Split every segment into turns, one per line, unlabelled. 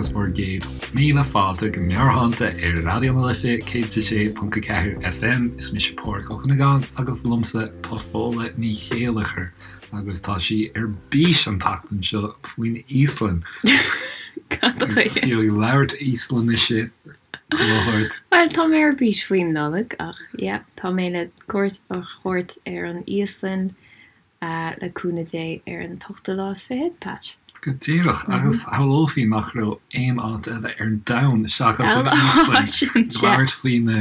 agus bhur gcéad míle fáilte go Meabhairshláinte ar Raidió na Life 106.4 FM. Is mise Pádhraic Ó Cuinneagáin agus liomsa tá Fódhla Ní Chéilleachair agus tá sí ar bís an tseachtain seo faoin Íoslainn.
Cad chuige?
Fiú ag labhairt Íoslainnise chuile shórt.
Bhuel, tá mé ar bís faoin Nollaig ach yeah, tá mé le cuairt a thabhairt ar an Íoslainn le cúnamh Dé ar an t-ochtú lá is fichead, Patch.
Go díreach, agus shamhlófaí nach raibh aon áit eile ar domhan seachas an Íoslainn ag labhairt faoi na.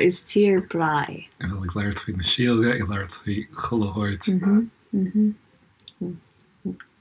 Is tír breá
é. Ag labhairt faoi na síoga, ag labhairt faoi chuile shórt.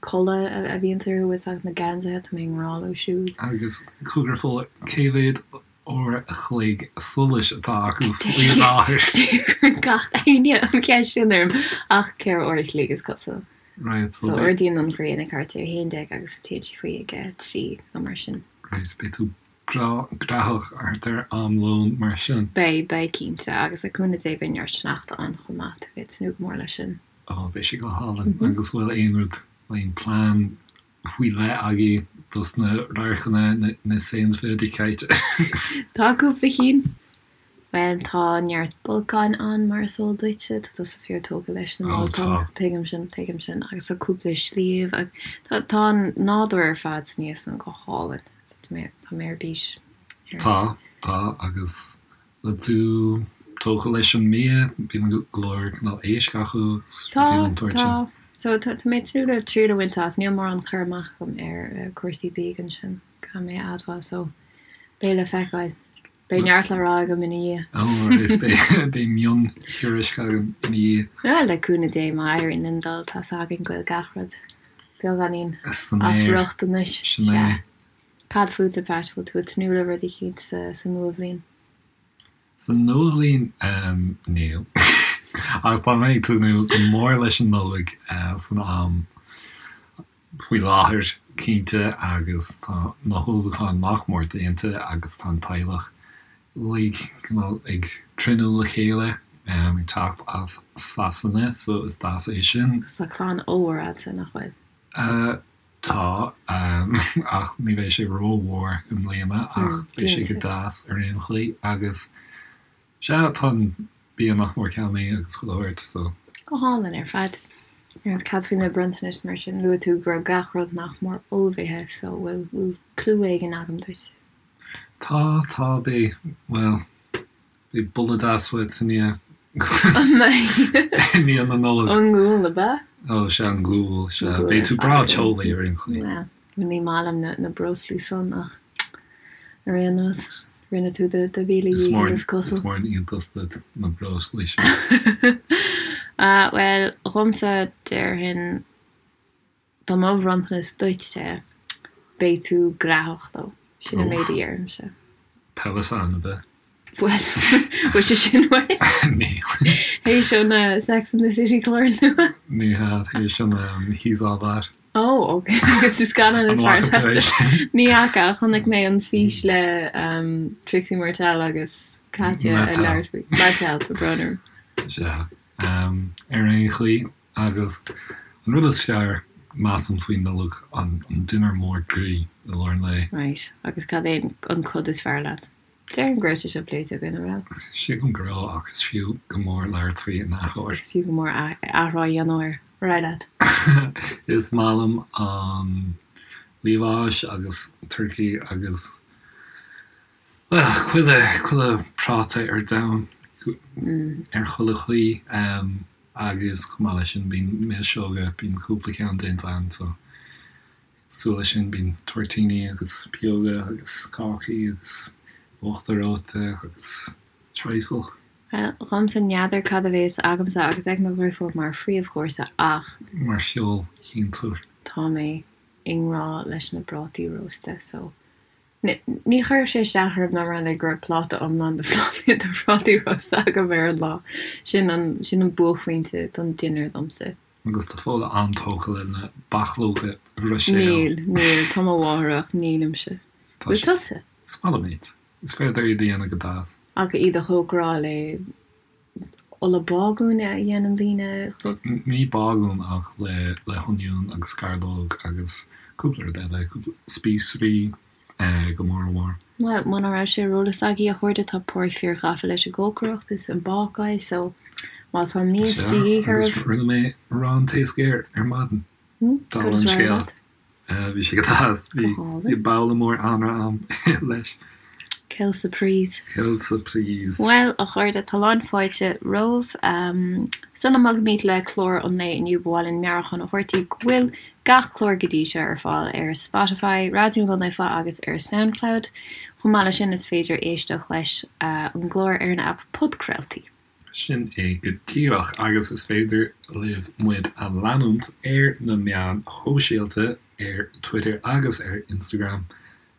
Culaith a bhíonns orthu is agus na geansaithe, tá mé i ngrá leo siúd.
Agus cogar Fódhla, cé mhéad uair a chloig solais atá acu faoi láthair?
Cuireann gach éinne an cheist sin orm ach 4 uair a chloig is cosúil.
Right,
so So ardaíonn an ghrian ag thart ar 11 agus téann sí faoi ag 3 nó mar sin.
Right, beidh tú breá graitheach thart ar am lóin mar sin.
Beidh, beidh cinnte, agus le cúnamh Dé beidh neart sneachta ann chomh maith, tá mé ag tnúth go mór leis sin.
Ó, beidh sé go hálainn. Agus bhfuil aon rud, aon plean faoi leith agaibh dos na radharcanna, na Sehenswürdigkeiten?
Tá cúpla cinn. Bhuel, tá neart bolcáin ann, mar is eol duitse. Tá tusa fíor tógtha leis na bolcáin. Tuigim sin, tuigim sin. Agus tá cúpla sliabh. Tá, tá an nádúr ar fad san Íoslainn go hálainn. So tá mé, tá mé ar bís
ar. Tá, tá, agus bhfuil tú tógtha leis an mbia? Bíonn go leor cineál éisc acu
agus rudaí den tsórt sin. Tá, tá. So tá, tá mé ag tnúth le triail a bhaint as. Níl mórán cur amach agam ar cúrsaí bídh ansin, caithfidh mé a admháil. So beidh le feiceáil. Beidh neart le rá agam ina dhiaidh.
Ó, is beidh miontuairisc agam ina dhiaidh.
Bhuel, le cúnamh Dé, má éiríonn linn dul, tá's againn go bhfuil gach rud beagáinín as riocht anois.
Sin é.
Cad fútsa, Pat? Bhfuil tú ag tnúth le rud eicínt sa nuabhliain?
Sa nuabhliain, níl. Ach tá mé ag tnúth go mór leis an Nollaig san am. faoi láthair, cinnte, agus tá na hullmhúcháin nach mór déanta agus tá an teaghlach uilig cineál ag cruinniú le chéile, ag teacht as Sasana, so is deas é sin.
Agus tá clann ollmhór agatsa, nach bhfuil?
Tá, ach ní bheidh sé rómhór i mbliana, ach beidh sé go deas ar aon chaoi agus sea, tá an bia nach mór ceannaithe agus chuile shórt, so.
Go hálainn ar fad. Agus cad faoi na bronntanais mar sin? Luaigh tú go raibh gach rud nach mór ullmhaithe, so bhfuil, bhfuil clue éigin agam duit?
Tá, tá, beidh, bhuel, beidh boladh deas uait i ndiaidh,
An mbeidh?
i ndiaidh na Nollag.
An gual, ab ea?
Ó, sea, an gual, sea. Beidh tú breá teolaí ar aon chaoi.
Bhuel, ní maith liom na, na breoslaí san ach ar aon nós. Rinne tú do mhíle dhícheall is cosúil.
Is mór an iontas duit na breoslaí sin.
Bhuel, dhomsa, déarfainn, dá mba bhronntanas duitse, beidh tú graitheach leo. Sin an méid a déarfaimse.
Peloton, ab ea?
Bhuel, bhfuil sé sin uait?
Níl.
Théis an Sex and the City clár nua?
Ní hea, théis an He's All That.
Oh, ok. Agus is scannán is fearr leat. Ní fhaca, ach chonaic mé an fís le um, Trixie Martell agus Katya ag labhairt faoi. Mattel, tá brón orm.
Sea. Um, ar aon chaoi, agus an rud is fearr, measaim faoin Nollaig, an, an dinnéar mór groí i lár an lae.
Right. Agus cad é an cod is fearr leat? Déarfainn go raibh sé seo pléite againn, an raibh?
Sílim go raibh, ach is fiú go mór labhairt faoi in athuair.
Is fiú go mór athrá a dhéanamh air. Ar aghaidh leat.
Is maith liom an liamhás agus turcaí agus, bhuel, chuile, chuile práta ar domhan, ar chuile chaoi. Agus chomh maith leis sin bíonn milseoga, bíonn cúpla ceann déanta ann so. Cosúil leis sin bíonn toirtíní agus pióga agus cácaí agus uachtar reoite agus trifle.
Bhuel, dhomsa n'fheadar cad a bhéas agamsa agus ag mo dhriofúr mar phríomhchúrsa ach.
Mar feoil-shuinteoir.
Tá mé i ngrá leis na prátaí rósta so ní chuirfeadh sé isteach orm dá mba rud é go raibh pláta iomlán de phrátaí rósta agam ar an lá. Sin an, sin an buaicphointe don dinnéar domsa.
Agus tá Fódhla an-tógtha le na bachlóga Bhruiséil.
Níl, níl, tá mo mháthair ach nílimse. Bhfuil tusa?
Is maith liom iad. Is féidir iad a dhéanamh go deas.
Ach iad a chócaráil le ola bágúin a dhéanann daoine.
Ní bágún ach le le hoinniún agus gairleog agus. Cúpla rud eile, cúpla spíosraí go mór mhór.
Bhuel, muna raibh sé ar eolas agaibh, a chairde, tá Páraic fíor ghafa leis an gcócaireacht is an bácáil, so má tá mias de dhíth
oraibh. Sea, agus rinne mé arán taos géar ar maidin. Dála an scéil. Bhí sé go deas. Bhí babhla mór anraith a'm leis.
Quelle surprise.
Quelle surprise.
Bhuel, a chairde, tá lán fáilte romhaibh. Sula mbogaimid le clár an lae inniu, ba mhaith linn meabhrúchán a thabhairt daoibh go bhfuil gach clár go dtí seo ar fáil ar Spotify, Raidió na Life agus ar Soundcloud. Chomh maith leis sin, is féidir éisteacht leis an gclár ar an aip podchraoltaí.
Sin é go díreach, agus is féidir libh muid a leanúint ar na meáin shóisialta, ar Twitter agus ar Instagram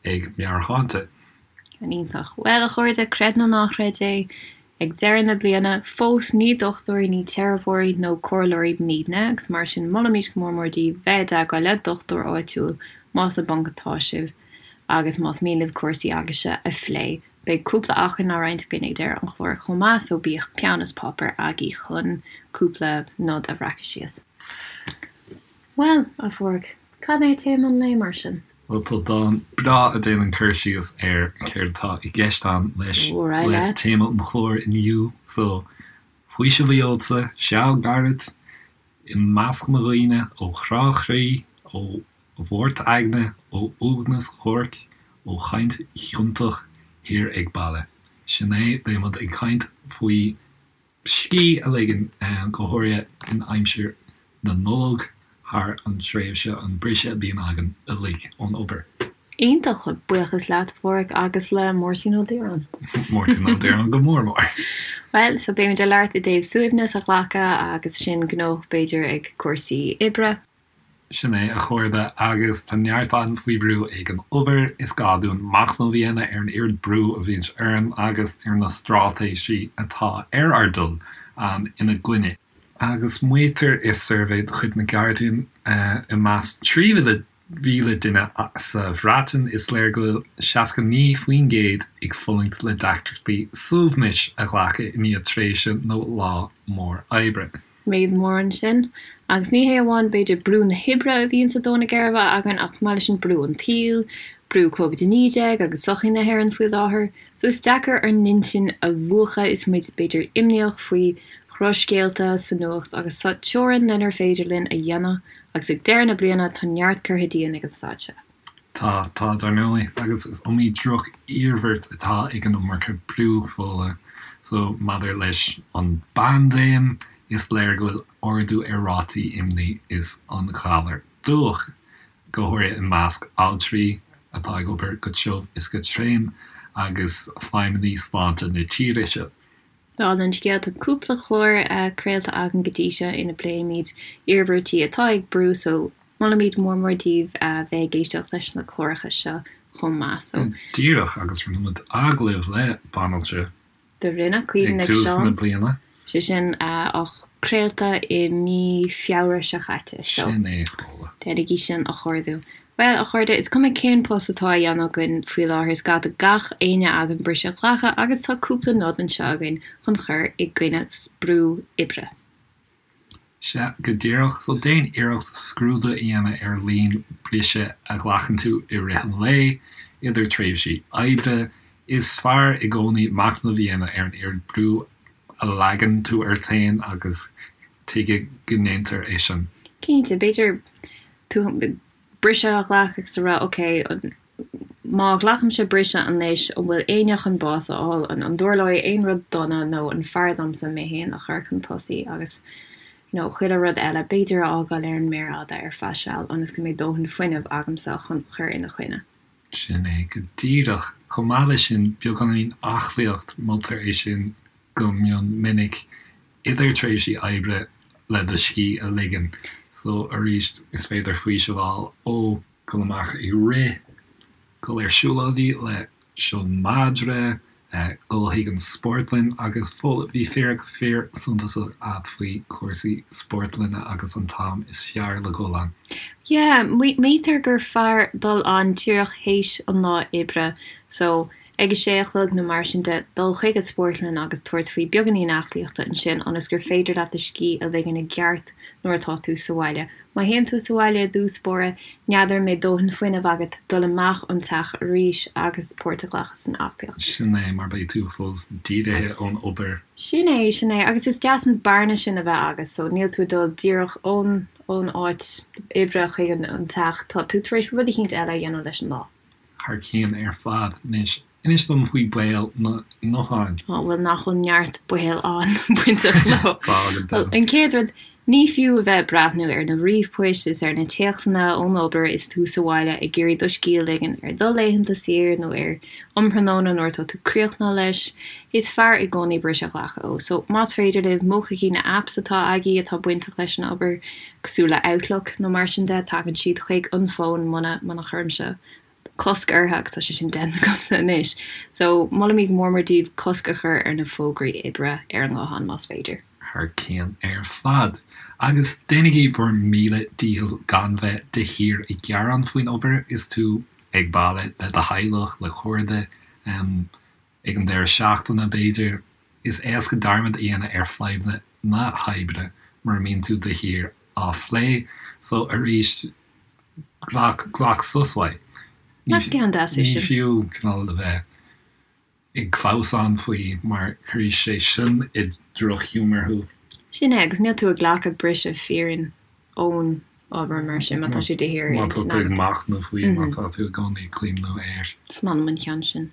ag Meabhairshláinte.
Iontach. Bhuel, a chairde, creid nó ná creid é, ag deireadh na bliana, fós ní dochtúirí, ní teiripeoirí nó comhairleoirí muidne, agus mar sin molaimid go mór mór daoibh bheith i dteagmháil le dochtúir áitiúil más i bponc atá sibh agus más mian libh cúrsaí agaibhse a phlé. Beidh cúpla acmhainn á roinnt againn ag deireadh an chláir chomh maith so bíodh peann is páipéar agaibh chun cúpla nod a bhreacadh síos. Bhuel, a Pháraic, cad é téama an lae mar sin?
Bhuel, tá dán breá a déanann cur síos ar céard atá i gceist a'm leis le téama an chláir inniu so faoiseamh a gheobhadsa, seal gairid i measc mo dhaoine, ó chrá chroí, ó mhort aigne, ó uaigneas dhuairc, ó chaint chiontach thiar ag baile. Sin é, beidh muid ag caint faoi scíth a ligean, go háirithe in aimsir na Nollag, thar an tréimhse, an briseadh a bhíonn againn uilig ón obair.
Iontach! Buíochas leat, a Pháraic, agus le Máirtín Ó Direáin.
Máirtín Ó Direáin go mór mór.
Bhuel, so beimid ag labhairt i dtaobh suaimhneas a ghlacadh agus sinn gnóthach b'fhéidir ag cúrsaí oibre.
Sin é, a chairde, agus tá neart againn faoi bhrú ag an obair. Is gá dúinn machnamh a dhéanamh ar an oiread brú a bhíonns orainn agus ar na straitéisí atá ar ár dtoil ina gcoinne. Agus maítear i suirbhé de chuid na Guardian i measc 3,000 duine sa Bhreatain, is léir go bhfuil 69% ag fulaingt le deacrachtaí suaimhnis a ghlacadh i ndiaidh tréimhse nó lá mór oibre.
Méid mór ansin. Agus ní hé amháin b'fhéidir brú na hoibre a bhíonn ag dó na geirbe againn ach chomh maith leis sin brú an tsaoil, brú Covid-19 agus sochaí na hÉireann faoi láthair. So is deacair ár n-intinn a mhúchadh is muid b'fhéidir imníoch faoi dhrochscéalta sa nuacht agus tá teorainn lenar féidir linn a dhéanamh agus ag deireadh na bliana tá neart curtha dínn ag an staid seo.
Tá, tá, dar ndóigh, agus is iomaí droch-iarmhairt atá ag an iomarca brú, Fódhla. So, maidir leis an bpaindéim, is léir go bhfuil ardú ar rátaí imní is an ghalar dubhach, go háirithe i measc altraí atá ag obair go tiubh is go tréan agus feidhmeannaigh sláinte na tíre seo.
Dála an scéil, tá cúpla clár craolta againn go dtí seo ina bpléimid iarmhairtí atá ag brú so molaimid mór mór daoibh bheith ag éisteacht leis na cláracha seo chomh maith so.
Díreach, agus rinne muid agallamh le banaltra
Do rinne, Caoimhín
ag tús na bliana.
Sé sin á craolta i mí Feabhra seo chaite
so. Sin é, Fódhla.
Déanaigí sin a chuardú. Bhuel, a chairde, is cuma cén post atá á dhéanamh againn faoi láthair, is gá do gach éinne againn briseadh a ghlacadh agus tá cúpla nod anseo againn chun cur i gcoinne brú oibre.
Sea, go díreach. So déan iarracht scrúdú a dhéanamh ar líon briseadh a ghlacann tú i rith an lae, idir tréimhsí oibre. Is fearr i gcónaí machnamh a dhéanamh ar an oiread brú a leagann tú ort féin agus tuige go ndéantar é sin.
Cinnte, b'fhéidir tú briseadh a ghlacadh agus a rá ok, má ghlacaimse briseadh anois, an bhfuil éinne chun bás a fháil, an dtarlóidh aon rud dona nó an fearr domsa mé féin a chur chun tosaigh agus you know chuile rud eile b'fhéidir a fhágáil ar an méar fhada ar feadh seal ionas go mbeidh dóthain fuinnimh agamsa chun cur ina choinne.
Sin é go díreach. Chomh maith leis sin, beagáinín aclaíocht, moltar é sin go mion minic idir tréimhsí oibre le do scíth a ligean. So arís, is féidir faoiseamh a fháil ó dhul amach ag rith, dul ar siúlóidí le do mhadra, dul chuig an spórtlann agus Fódhla, bhí fíric fíor suntasach a'd faoi chúrsaí spórtlainne agus an t-am is fearr le dhul ann.
Yeah, maítear gur fearr dul ann díreach théis an lá oibre so. ag a sé a chlog nó mar sin de, dul chuig an spórtlann agus tabhairt faoi beagáinín aclaíochta ansin ionas gur féidir leat do scíth a ligean i gceart nuair atá tú sa bhaile. Má théann tú sa bhaile i dtús báire, n'fheadar an mbeidh dóthain fuinnimh agat dul amach ón teach arís agus páirt a ghlacadh san aclaíocht.
Sin é, mar beidh tú fós dírithe ón obair.
Sin é, sin é. Agus is deas an bearna sin a bheith agat so níl tú ag dul díreach ón ón áit oibre chuig an teach, tá tú tar éis rud eicínt eile a dhéanamh leis an lá.
Thar cionn ar fad. Anois, inis dom faoi baol na ngutháin.
Á, bhuel, nach bhfuil neart baol ann bainteach leo. Tá, go deimhin. Bhuel, an chéad rud, ní fiú a bheith ag breathnú ar na ríomhphoist is ar na téacsanna ón obair is tú sa bhaile ag iarraidh do scíth a ligean ar do laethanta saoire nó ar um thráthnóna nuair atá tú críochnaithe leis. Is fearr i gcónaí briseadh a ghlacadh ó. So, más féidir libh, múchaigí na apps atá agaibh atá bainteach leis an obair. cosúil le Outlook nó mar sin de, tagann siad chuig an bhfón muna, muna chuirimse cosc orthu agus tá sé sin déanta agamsa anois. So, molaimid go mór mór daoibh cosc a chur ar na fógraí oibre ar an nguthán más féidir.
Thar cionn ar fad. Agus déanaigí bhur míle dícheall gan bheith de shíor ag gearán faoin obair is tú ag baile le do theaghlach, le cairde, Ag an deireadh seachtaine, b'fhéidir, is éasca dearmad a dhéanamh ar fadhbanna na hoibre mura mbíonn tú de shíor á phlé. So, arís, glac, glac sos uaidh.
Nach ceann deas é
Ní sin? fiú cineál a bheith ag clamhsán faoi mar cuirfidh sé sin i drochghiúmar thú.
Sin é, agus níl tú ag glacadh briseadh fírinne ón obair mar sin má tá sé de shíor
Má tá tú ag machnamh faoi, má tá tú i gcónaí ag cuimhniú air.
Is maith liom an ceann sin.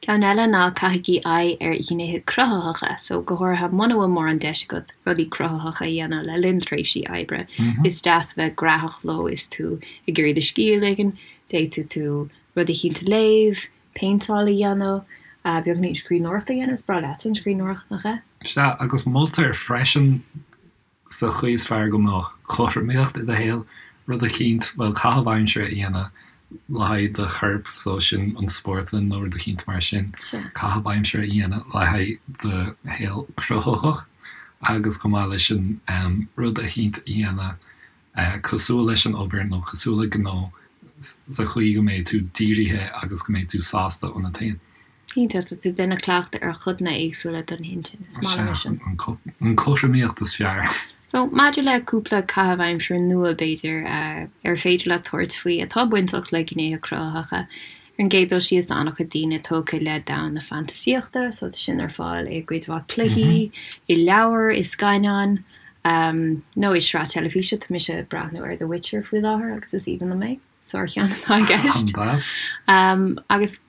Ceann eile ná caithigí aghaidh ar ghnéithe cruthaitheacha, so go háirithe muna bhfuil mórán deis agat rudaí cruthaitheacha a dhéanamh le linn tréimhsí oibre, is deas a bheith graitheach leo is tú ag iarraidh do scíth a ligean, d'fhéadfadh tú rud eicínt a léamh, péinteáil a dhéanamh, beagáinín scríbhneoireachta a dhéanamh, is breá leat an scríbhneoireacht, nach ea?
Sea, agus moltar freisin sa chaoi is fearr go mbeadh cothromaíocht i do shaol, rud eicínt, bhuel, caitheamh aimsire a dhéanamh le haghaidh do choirp, so sin an spórtlann nó rud eicínt mar sin, caitheamh aimsire a dhéanamh le haghaidh do shaol cruthaitheach agus chomh maith leis sin rud eicínt a dhéanamh cosúil leis an obair nó cosúil le gnó sa chaoi go mbeidh tú dírithe agus go mbeidh tú sásta ionat féin.
Cinnte, tá tú ag déanamh cleachtadh ar chodanna éagsúla den intinn. Is maith liom é sin.
An chothromaíocht is fearr.
So, maidir le cúpla caitheamh aimsire nua, b'fhéidir, ar féidir leat tabhairt faoi atá bainteach le gnéithe cruthaitheacha, ar an gcéad dul síos, tá an-chuid daoine tógtha le domhan na fantaisíochta, so tá sin ar fáil i gcuid mhaith cluichí, i leabhair, i scannáin, nó i sraith teilifíse. Tá mise ag breathnú ar The Witcher faoi láthair agus is aoibhinn liom é. Sárcheann atá i gceist. Agus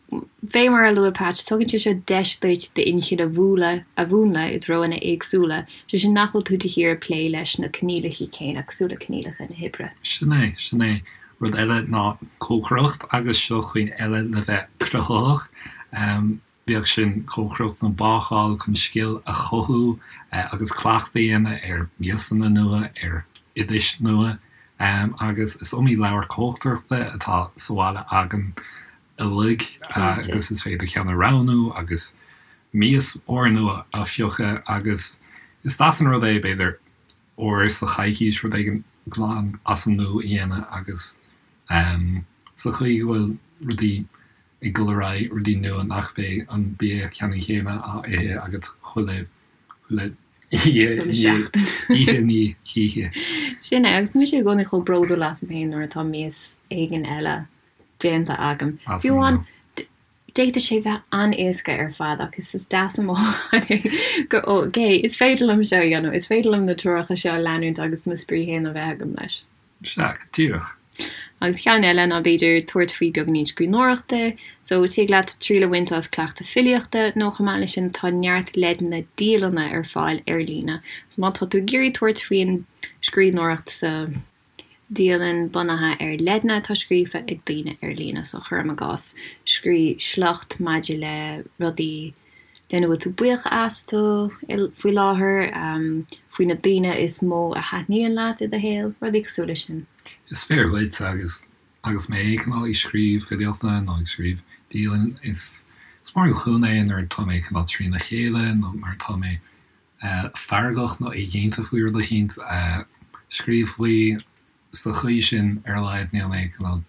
fé mar a luaigh Patch, tugann sé seo deis duit d'inchinn a mhúnlú a mhúnlú i dtreonna éagsúla, sé sin nach bhfuil tú de shíor ag plé leis na coinníollacha céanna, cosúil le coinníollacha na hoibre.
Sin é, sin é. Rud eile ná cócaireacht agus seo chaoi eile le bheith cruthaitheach. Bíodh sin cócaireacht nó bácáil chun scil a chothú agus cleachtadh a dhéanamh ar mhiasanna nua, ar oidis nua. Agus is iomaí leabhar cócaireachta atá sa bhaile againn uilig agus is féidir ceann a roghnú agus mias úrnua a phiocadh agus is deas an rud é, b'fhéidir, uair sa choicís rud éigin glan as an nua a dhéanamh agus sa chaoi go bhfuil rudaí ag dul ar aghaidh, rudaí nua nach mbeidh an bia ceannann céanna á ithe agat chuile, chuile oíche, oíche i ndiaidh
hoíche. Sin é, agus tá mise i gcónaí chomh bródúil asam féin nuair atá mias éigin eile déanta agam. Fiú amháin, d'fhéadfadh sé bheith an-éasca ar fad ach is deas an mothúchán é gur ok, is féidir liom seo a dhéanamh, is féidir liom na treoracha seo a leanúint agus mo spraoi féin a bheith agam leis.
Sea, go díreach.
Agus ceann eile ná b'fhéidir tabhairt faoi beagáinín scríbhneoireachta, so tig leat triail a bhaint as cleachtadh filíochta nó chomh maith leis sin tá neart leideanna dialanna ar fáil ar líne. So má tá tú ag iarraidh tabhairt faoin scríbhneoireacht sa dialann bunaithe ar leideanna atá scríofa ag daoine ar líne, so cuirim i gcás scríobh sliocht maidir le rudaí lena bhfuil tú buíoch astu faoi láthair, faoi na daoine is mó a thaitníonn leat i do shaol, rudaí cosúil leis sin.
Is fíor dhuit agus agus mé cineál ag scríobh filíochta nó ag scríobh dialann is is mór an chúnamh é nuair atá mé cineál trína chéile nó nuair atá mé feargach nó éiginnte faoi rud eicínt, scríobh faoi sa chaoi sin ar a laghad níl mé cineál.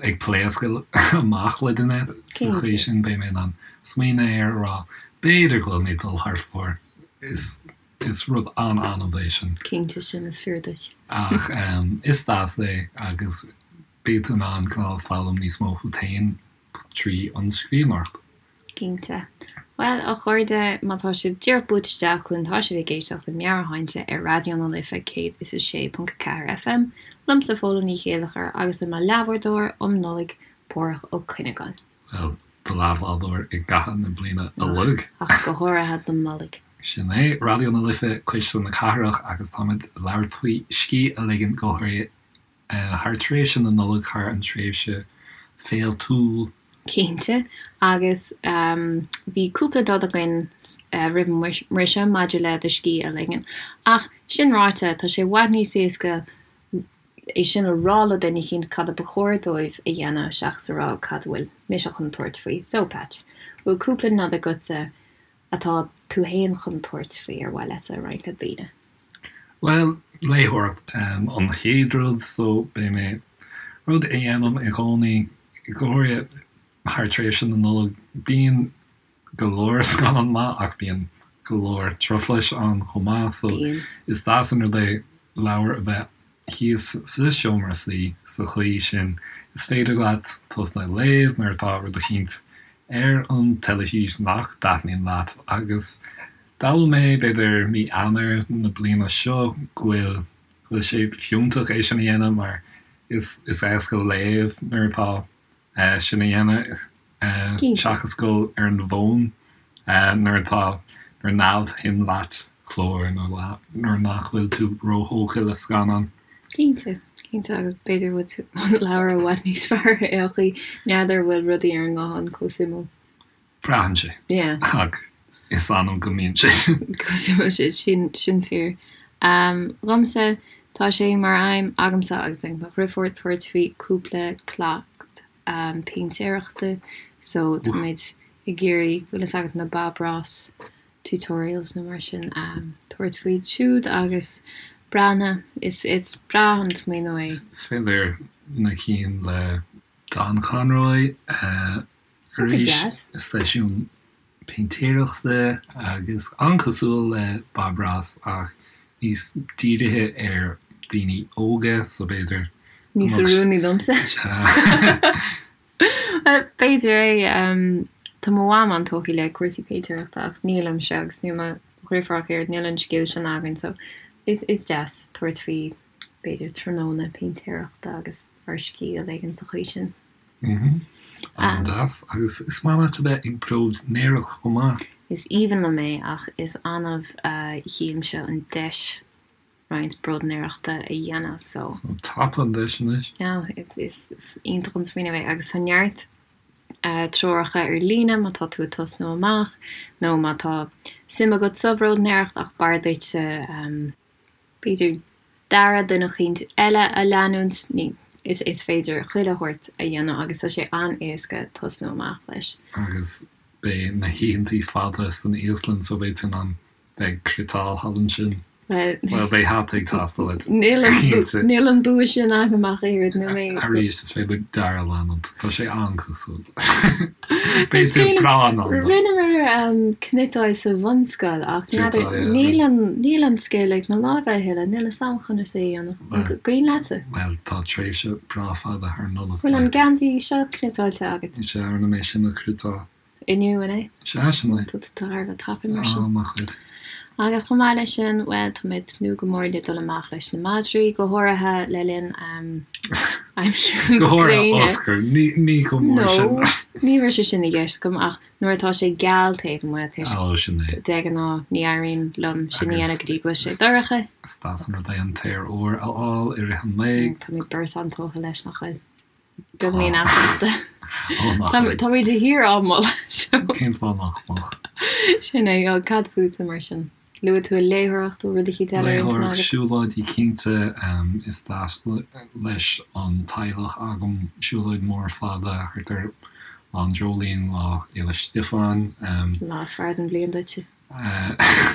ag pléascadh amach le duine sa chaoi sin, beidh mé in ann smaoineamh air a rá b'fhéidir go bhfuil mé ag dul thar fóir. Is is rud an-annamh é sin.
Cinnte, sin is fíor duit.
Ach is deas é agus beidh tú in ann cineál foghlaim níos mó fút féin trí an scríbhneoireacht.
Cinnte. Bhuel, a chairde, má tá sibh díreach buailte isteach chugainn, tá sibh ag éisteacht le Meabhairshláinte ar Raidió na Life 106.4 FM, liomsa Fódhla Ní Chéilleachair agus le mo leathbhádóir um Nollaig, Páraic Ó Cuinneagáin.
Bhuel, do leathbhádóir i gcaitheamh na bliana uilig.
Ach go háirithe don Nollaig.
Sin é, Raidió na Life, Cuisle na Cathrach, agus táimid ag labhairt faoi scíth a ligean go háirithe thar tréimhse na Nollag, thar an tréimhse féiltiúil.
Cinnte, agus bhí cúpla nod againn roimh an mbriseadh maidir le do scíth a ligean. Ach sin ráite, tá sé i bhfad níos éasca é sin a rá le duine eicínt cad a ba chóir dóibh a dhéanamh seachas a rá cad a bhfuil mise chun tabhairt faoi. So, Patch, bhfuil cúpla nod agatsa atá tú fhéin chun tabhairt faoi ar mhaith leatsa a roinnt le daoine?
Bhuel, léitheoireacht an chéad rud, so beidh mé, rud a dhéanaim i gcónaí, go háirithe thar tréimhse na Nollag, bíonn go leor scannán maith ach bíonn go leor truflais ann chomh maith, so is deas an rud é leabhar a bheith thíos sa seomra suí sa chaoi sin is féidir leat tosnú ag léamh nuair atá rud eicínt ar an teilifís nach dtaitníonn leat agus d'fhoghlaim mé b'fhéidir mí Eanáir na bliana seo go bhfuil go bhfuil sé fiúntach é sin a dhéanamh mar is is éasca léamh nuair atá sin a dhéanamh seachas dul ar an bhfón nuair atá nuair neamhshuim leat clár nó nuair nach bhfuil tú róthógtha le scannán.
Cinnte, cinnte agus b'fhéidir go bhfuil an leabhar i bhfad níos fearr ar aon chaoi, n'fheadar an bhfuil rudaí ar an nguthán chomh suimiúil.
Braitheann sé.
Yeah.
Ach is annamh go mbíonn sé.
Go suimiúil, sin, sin fíor. Dhomsa, tá sé mar aidhm agamsa agus ag mo dhriofúr tabhairt faoi cúpla cleacht péintéireachta so táimid ag iarraidh, bhfuil fhios agat na Bob Ross tutorials nó mar sin, tabhairt faoi siúd agus breathnú, is, is breá an smaoineamh é.
Is féidir na cinn le Don Conroy a Arís, seisiún péintéireachta agus an-cosúil le Bob Ross ach níos dírithe ar daoine óga, so b'fhéidir
go Níos mbeadh oiriúnaí domsa. Bhuel, b'fhéidir é. Tá mo mham an-tógtha le cúrsaí péintéireachta ach nílimse agus níl mo dhriofúr ach oiread, níl an scil sin againn so is deas tabhairt faoi b'fhéidir tráthnóna péintéireachta agus ár scíth a ligean sa chaoi sin.
An-deas. Agus is maith leat a bheith ag bróidnéireacht chomh maith.
Is aoibhinn liom é ach is annamh a tchímse an deis roinnt bróidnéireachta a dhéanamh so.
So tapaigh an deis anois.
Yeah, is iontach an smaoineamh é agus tá neart treoracha ar líne má tá tú ag tosnú amach nó má tá suim agat sa bhróidnéireacht ach b'fhearr duitse b'fhéidir dearadh duine eicínt eile a leanúint, ní, is is féidir chuile shórt a dhéanamh agus tá sé an-éasca tosnú amach leis.
Agus beidh na hoícheantaí fada san íoslainn so beidh tú in ann bheith ag cniotáil thall ansin.
Bhuel,
Bhuel, beidh hata ag teastáil uait.
Níl an Cinnte. níl an bua sin agam ach oiread, níl mé.
Arís, is féidir dearadh a leanúint. Tá sé an-cosúil. Beidh tú breá in ann.
Rinneamar cniotáil sa bhunscoil ach n'fheadar, níl an, níl an scil ag mo lámha a thuilleadh, níl fhios a'm conas é a dhéanamh. An cuimhin leatsa?
Bhuel, tá tréimhse breá fada thar Nollaig.
Bhfuil an geansaí seo cniotáilte agat?
Is ea, rinne mé sin a chniotáil.
Inniu, an é?
Sea, sin é.
Tá tú thar a bheith tapaidh mar sin.
Á, maith dhuit.
Agus chomh maith leis sin, bhuel, tá mé ag tnúth go mór le dul amach leis na madraí, go háirithe le linn aimsir
na Go háirithe gréine. Oscar, ní, ní chomh mór sin.
No, ní raibh sé sin i gceist agam, ach nuair atá sé geal taobh amuigh, tá sé,
Ó, sin é.
de ghnáth, ní éiríonn liom sin a dhéanamh go dtí go bhfuil sé dorcha.
Is deas an rud é an t-aer úr a fháil i rith an lae.
Táimid beirt an-tógtha leis, nach bhfuil? Beagáinín easnachta. Táimid de shíor á moladh.
Cén fáth nach mbeadh?
Sin é, cad fútsa mar sin? Luaigh tú léitheoireacht, bhfuil rud eicínt eile ar intinn
agat? Léitheoireacht, siúlóidí cinnte, is deas leis an teaghlach agam siúlóid mór fada thart ar Lá an Dreoilín, Lá Fhéile Stiofáin.
Lá is fearr den bhliain duitse.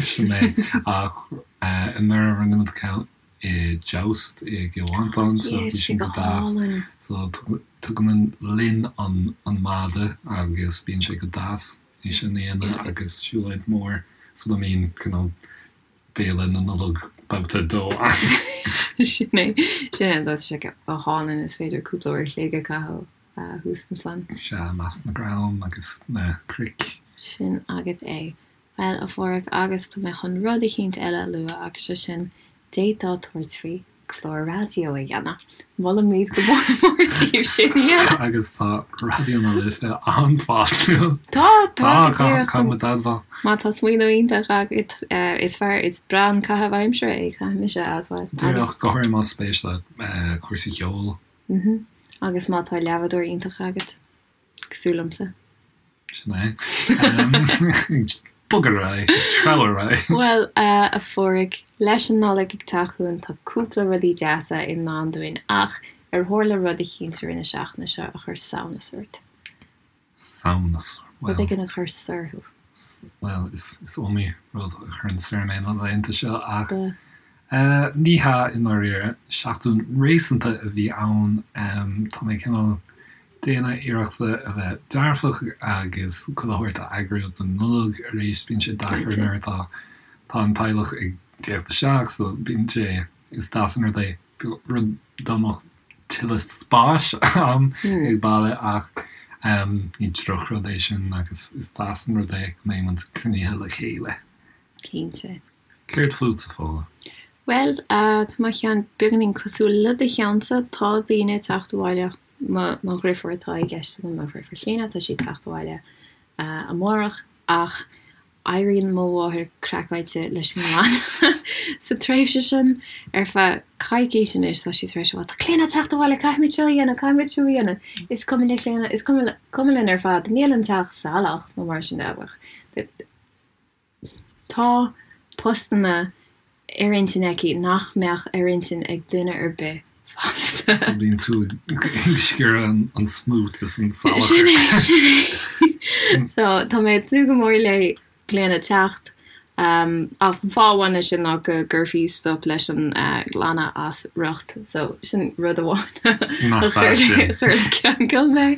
Sin é, ach anuraidh rinne muid ceann. I Joust i gCill Mhantáin so bhí sin go deas. So tugaimid linn an madadh agus bíonn sé go deas é sin a dhéanamh agus siúlóid mór sula mbíonn cineál béile na Nollag babhta a dó ann.
Sin é, sin é, tá sé go hálainn is féidir cúpla uair a chloig a chaitheamh thuas ansan.
Sea, i measc na gcrann agus na cnoic.
Sin agat é. Bhuel, a Pháraic, agus tá mé chun rud eicínt eile a lua agus sé sin, d'fhéadfá tabhairt faoi clár raidió a dhéanamh. Molaimid go mór mór daoibh sin a dhéanamh.
Agus tá Raidió na Life an-fháiltiúil.
Tá, tá, go díreach.
Tá, caithfidh muid a admháil.
Má tá smaoineamh iontach agat, is fearr, is breá an caitheamh aimsire é, caithfidh mise a admháil.
Díreach, go háirithe más spéis leat cúrsaí ceoil.
Agus má tá leabhadóir iontach agat. Cosúil liomsa.
Sin é. Bog ar aghaidh, treabh ar aghaidh.
Bhuel, a Pháraic, leis an Nollaig ag teacht chugainn tá cúpla rudaí deasa i ndán dúinn ach ar tharla rud eicínt i rith na seachtaine seo a chuir samhnas ort?
Samhnas?
Bhuel. Rud éigin a chuir soir thú?
Bhuel, is iomaí rud a chuireann soir mé na laethanta seo ach ní hea i ndáiríre. Seachtain réasúnta a bhí ann. Tá mé cineál déanamh iarrachta a bheith dearfach agus chuile shórt a eagrú don Nollaig arís. Bíonn sé deacair nuair atá tá an teaghlach ag teacht isteach so bíonn sé, is deas an rud é rud dá mbeadh tuilleadh spáis a'm ag baile ach ní drochrud é sin agus is deas an rud é go mbeidh muid cruinnithe le chéile.
Cinnte.
Céard fútsa, Fódhla?
Bhuel, tá mo cheann beagáinín cosúil le do cheannsa. Tá daoine ag teacht abhaile, mo dhriofúr atá i gceist agam, mo dhriofúr Clíona, tá sí ag teacht abhaile amárach ach Éiríonn mo mháthair craiceáilte leis an nglanadh sa tréimhse sin. Ar feadh coicíse anois tá sí tar éis a rá, 'Tá Clíona ag teacht abhaile, caithfimid seo a dhéanamh, caithfimid siúd a dhéanamh. Is cuma le Clíona, is cuma linn ar fad, níl an teach salach nó mar sin de ach tá postanna ar intinn aici nach mbeadh ar intinn ag duine ar bith
fásta. So bíonn tú ag sciorradh an smut is an
salachar. Sin é, sin é. So tá mé ag tnúth go mór le Clíona teacht. Ach fáth amháin leis sin ná go gcuirfí stop leis an nglanadh as riocht. So sin rud amháin a chuir le ceangal mé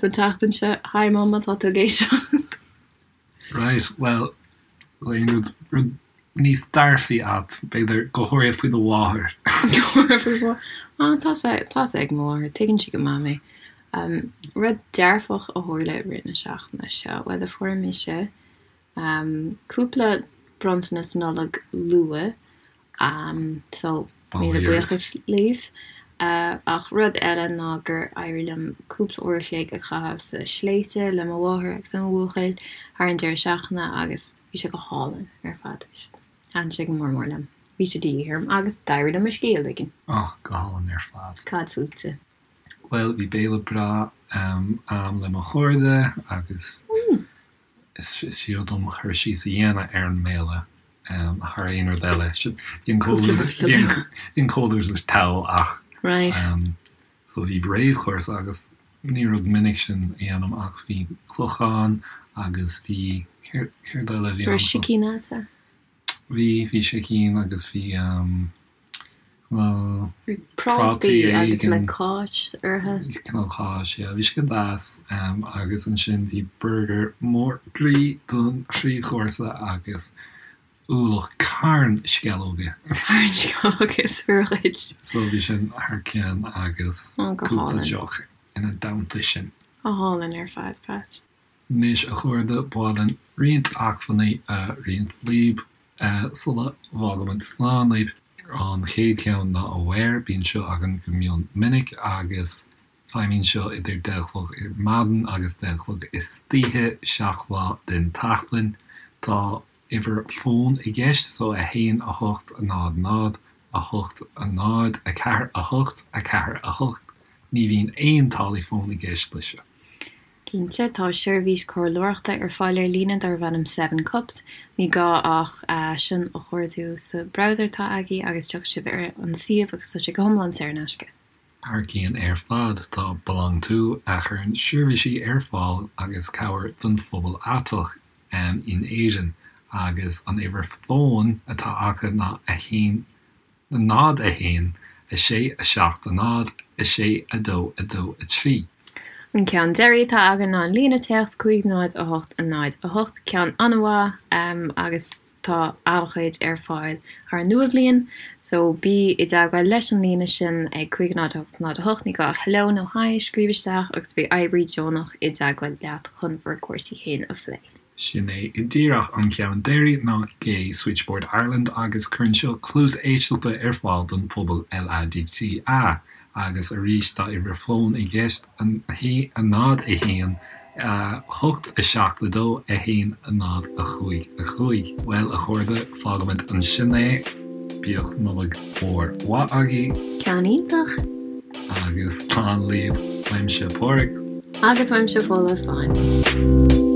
don tseachtain seo. Hi Mum, má tá tú ag éisteacht.
Right, bhuel, aon rud, rud níos dearfaí a'd, b'fhéidir, go háirithe faoi do mháthair.
Go háirithe faoi mo mháthair. Ah, tá sé, tá sé ag mo mháthair, tuigeann sí go maith mé. Um, rud dearfach a tharla i rith na seachtaine seo, bhuel, fuair mise um, cúpla bronntanas Nollag luath, Um, so, míle buíochas libh. Ach rud eile ná gur éirigh liom cúpla uair a chloig a chaitheamh sa sléibhte le mo mháthair agus le mo bhuachaill thar an deireadh seachtaine agus bhí sé go hálainn ar fad. Thaitin sé go mór mór liom. Bhí sé de dhíth orm agus d'éirigh liom mo scíth a ligean.
Och, go hálainn ar fad.
Cad fútsa?
Bhuel, bhí béile breá a'm le mo chairde agus Is fiú dom cur síos a dhéanamh ar an mbéile thar aon rud eile. Bhí an comhluadar togha ach so bhí réamhchúrsa agus ní rud minic sin a dhéanaim ach bhí clochán agus bhí céard eile a bhí
ann? Raibh sicín a'dsa?
Bhí, bhí sicín agus bhí
Bhí prátaí agus le cáis orthu.
Cineál cáis, yeah. Bhí sé go deas agus ansin bhí burger mór groí don phríomhchúrsa agus ualach carn sceallóga.
Carn sceallóga is fíor dhuit.
So bhí sin thar cionn agus cúpla deoch ina dteannta sin.
Go hálainn ar fad, Pat.
Anois, a chairde, ba mhaith linn roinnt acmhainní a roinnt libh sula bhfágaimid slán libh. An chéad cheann ná Aware, bíonn seo againn go mion minic agus feidhmíonn seo idir deich a chlog ar maidin agus deich a chlog istoíche, 7 lá den tseachtain. Tá uimhir fóin i gceist, so 1 8 0 0 8 0 4 8 4 8. Ní bhíonn aon táillí fóin i gceist leis seo.
Cinnte, tá seirbhís comhairleoireachta ar fáil ar líne darb ainm Seven Cups. Ní gá ach sin a chuardú sa browser atá agaibh agus tiocfaidh sibh ar an suíomh agus tá sé go hiomlán saor in aisce.
Thar cionn ar fad, tá BeLonG To a chuireann seirbhísí ar fáil agus cabhair don phobal aiteach in Éirinn agus an uimhir fóin atá acu ná 1. 0 1 6 7 0 6 2 2 3.
An ceann deiridh atá againn ná an líne téacs 5 0 8 0 8, ceann an-mhaith agus tá an-chuid ar fáil thar an Nua-Bhliain so bí i dteagmháil leis an líne sin ag 5 0 8 0 8, ní gá ach hello nó hi a scríobh isteach agus beidh oibrí deonach i dteagmháil leat chun bhur gcúrsaí féin a phlé.
Sin é díreach an ceann deiridh ná Gay Switchboard Ireland agus cuireann seo cluas éisteachta ar fáil don phobal LADTA agus arís tá uimhir fóin i gceist, 0 1 8 7 2 1 0 5 5. Bhuel, a chairde, fágfaimid ansin é. Bíodh Nollaig mhór mhaith agaibh.
Ceann iontach!
Agus slán libh. Uaimse Pádraig.
Agus uaimse Fódhla, slán.